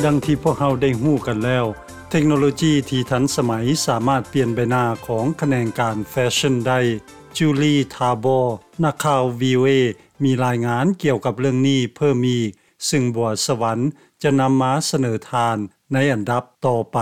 ດັ່ງທີ່ພວກເຮົາໄດ້ຮູ້ກັນແລ້ວ, ເທັກໂນໂລຈີທີ່ທັນສະໄໝສາມາດປ່ຽນໃບໜ້າຂອງຂະແໜງການແຟຊັ່ນໄດ້. ຈູລີ ທາບໍ ນັກຂ່າວ ວີໂອເອ ມີລາຍງານກ່ຽວກັບເລື່ອງນີ້ເພີ່ມອີກ, ຊຶ່ງບົວສະຫວັນຈະນຳມາສະເໜີທ່ານໃນອັນດັບຕໍ່ໄປ.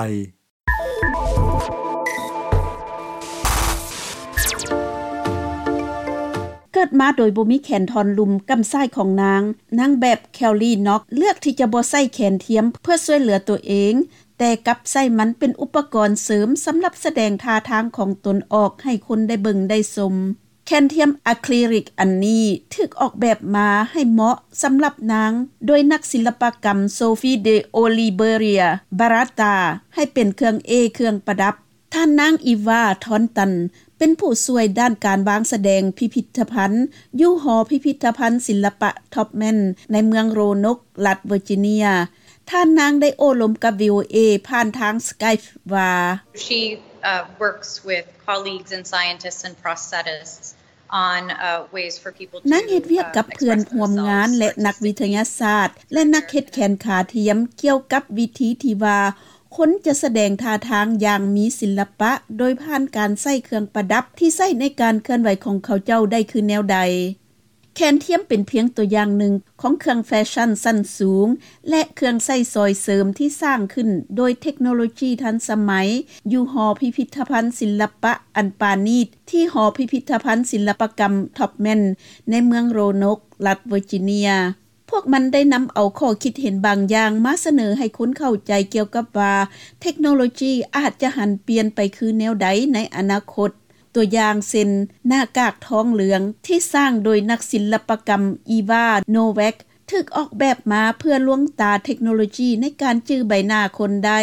ເກີດມາໂດຍບໍ່ມີແຂນທ່ອນລຸ່ມກ້ຳຊ້າຍຂອງນາງ, ນາງແບບ ແຄວລີ ນັອກ ເລືອກທີ່ຈະບໍ່ໃຊ້ແຂນທຽມເພື່ອຊ່ວຍເຫຼືອຕົວເອງ, ແຕ່ກັບໃຊ້ມັນເປັນອຸປະກອນເສີມສຳລັບສະແດງທ່າທາງຂອງຕົນອອກໃຫ້ຄົນໄດ້ເບິ່ງໄດ້ຊົມ. ແຂນທຽມອາຄຣິລິກອັນນີ້ຖືກອອກແບບມາໃຫ້ເໝາະສຳລັບນາງໂດຍນັກສິລະປະກຳ ໂຊຟີ ເດ ໂອລິເບເຣຍ ບາຣາຕາ ໃຫ້ເປັນເຄື່ອງເອ ເຄື່ອງປະດັບ. ທ່ານນາງ ອີວາ ທອນຕັນ ເປັນຜູ້ຊ່ວຍດ້ານການວາງສະແດງພິພິທະພັນຢູ່ຫໍພິພິທະພັນສິລະປະ Taubman ໃນເມືອງໂຣນົກ ລັດເວີຈິເນຍ. ທ່ານນາງໄດ້ໂອ້ລົມກັບ ວີໂອເອ ຜ່ານທາງ Skype ວ່າ She, uh, works with colleagues and scientists and prosthetists on, uh, ways for people to, ນາງເຮັດວຽກກັບເພື່ອນຮ່ວມງານ ແລະ ນັກວິທະຍາສາດ ແລະ ນັກເຮັດແຂນຂາທຽມ ກ່ຽວກັບວິທີທີ່ວ່າຄົນຈະສະແດງທ່າທາງຢ່າງມີສິລະປະ ໂດຍຜ່ານການໃຊ້ເຄື່ອງປະດັບທີ່ໃຊ້ໃນການເຄື່ອນໄຫວຂອງເຂົາເຈົ້າໄດ້ຄືແນວໃດ. ແຂນທຽມເປັນພຽງຕົວຢ່າງໜຶ່ງຂອງເຄື່ອງແຟຊັ່ນຊັ້ນສູງ ແລະ ເຄື່ອງໃຊ້ຊ່ອຍເສີມທີ່ສ້າງຂຶ້ນໂດຍເທັກໂນໂລຈີທັນສະໄໝ ຢູ່ຫໍພິພິທະພັນສິລະປະອັນປານີດ ທີ່ຫໍພິພິທະພັນສິລະປະກຳ Taubman ໃນເມືອງໂຣນົກ ລັດເວີຈິເນຍ. ພວກມັນໄດ້ນຳເອົາຂໍ້ຄິດເຫັນບາງຢ່າງມາສະເໜີໃຫ້ຄົນເຂົ້າໃຈກ່ຽວກັບວ່າ ເທັກໂນໂລຈີອາດຈະຫັນປ່ຽນໄປຄືແນວໃດໃນອະນາຄົດ. ຕົວຢ່າງເຊັ່ນ ໜ້າກາກທອງເຫຼືອງທີ່ສ້າງໂດຍນັກສິລະປະກຳ ອີວາ ໂນແວັກ ຖືກອອກແບບມາເພື່ອລວງຕາເທັກໂນໂລຈີໃນການຈື່ໃບໜ້າຄົນໄດ້.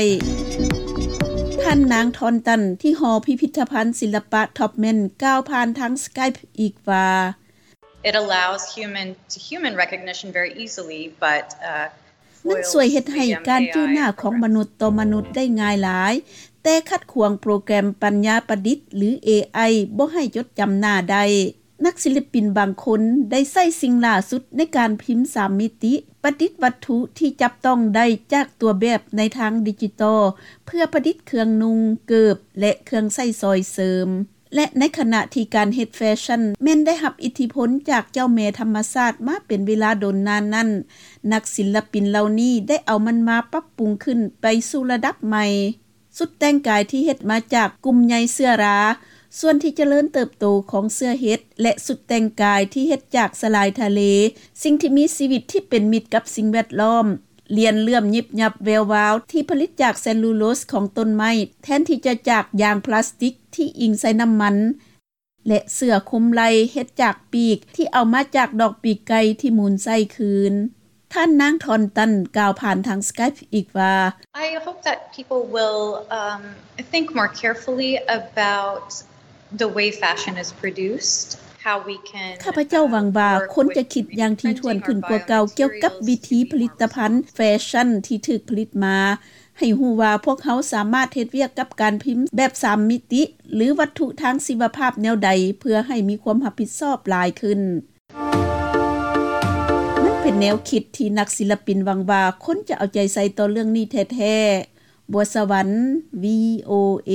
ທ່ານນາງ ທອນຕັນ ທີ່ຫໍພິພິທະພັນສິລະປະ Taubman ກ່າວຜ່ານທາງ Skype ອີກວ່າ It allows human to human recognition very easily, but, uh, ມັນຊ່ວຍເຮັດໃຫ້ການຈື່ໜ້າຂອງມະນຸດຕໍ່ມະນຸດໄດ້ງ່າຍຫຼາຍ, ແຕ່ຂັດຂວາງໂປຣແກຣມປັນຍາປະດິດ ຫຼື ເອໄອ ບໍ່ໃຫ້ຈົດຈຳໜ້າໄດ້. ນັກສິລະປິນບາງຄົນໄດ້ໃຊ້ສິ່ງຫຼ້າສຸດໃນການພິມສາມມິຕິ, ປະດິດວັດຖຸທີ່ຈັບຕ້ອງໄດ້ຈາກຕົວແບບໃນທາງດິຈິຕອລ ເພື່ອປະດິດເຄື່ອງນຸ່ງ, ເກີບ ແລະ ເຄື່ອງໃຊ້ຊ່ອຍເສີມ. ແລະ ໃນຂະນະທີ່ການເຮັດແຟຊັ່ນແມ່ນໄດ້ຮັບອິດທິພົນຈາກເຈົ້າແມ່ທຳມະຊາດມາເປັນເວລາດົນນານນັ້ນ, ນັກສິລະປິນເຫຼົ່ານີ້ໄດ້ເອົາມັນມາປັບປຸງຂຶ້ນໄປສູ່ລະດັບໃໝ່. ຊຸດແຕ່ງກາຍທີ່ເຮັດມາຈາກກຸ່ມໃຍເຊື້ອລາ, ສ່ວນທີ່ຈະເລີນເຕີບໂຕຂອງເຊື້ອເຫັດ ແລະ ຊຸດແຕ່ງກາຍທີ່ເຮັດຈາກສະຫຼາຍທະເລ, ສິ່ງທີ່ມີຊີວິດທີ່ເປັນມິດກັບສິ່ງແວດລ້ອມ. ລຽນເລື່ອມຍິບຍັບແວວວາວທີ່ຜະລິດຈາກເຊລລູໂລສຂອງຕົ້ນໄມ້ ແທນທີ່ຈະຈາກຢາງພລາສຕິກທີ່ອີງໃສ່ນ້ຳມັນ ແລະ ເສື້ອຄຸມໄຫຼ່ເຮັດຈາກປີກທີ່ເອົາມາຈາກດອກປີກໄກ່ທີ່ໝູນໃສ່ຄືນ. ທ່ານນາງ ທອນຕັນ ກ່າວຜ່ານທາງ Skype ອີກວ່າ I hope that people will, um, think more carefully about the way fashion is produced, how we can, ຂ້າພະເຈົ້າຫວັງວ່າ uh, ຄົນຈະຄິດຢ່າງຖີ່ຖ້ວນຂຶ້ນກວ່າເກົ່າກ່ຽວກັບວິທີຜະລິດຕະພັນແຟຊັ່ນທີ່ຖືກຜະລິດມາ, ໃຫ້ຮູ້ວ່າພວກເຮົາສາມາດເຮັດວຽກກັບການພິມແບບສາມມິຕິ ຫຼື ວັດຖຸທາງຊີວະພາບແນວໃດ ເພື່ອໃຫ້ມີຄວາມຮັບຜິດຊອບຫຼາຍຂຶ້ນ. ມັນເປັນແນວຄິດທີ່ນັກສິລະປິນຫວັງວ່າຄົນຈະເອົາໃຈໃສ່ຕໍ່ເລື່ອງນີ້ແທ້ໆ. ບົວສະຫວັນ ວີໂອເອ.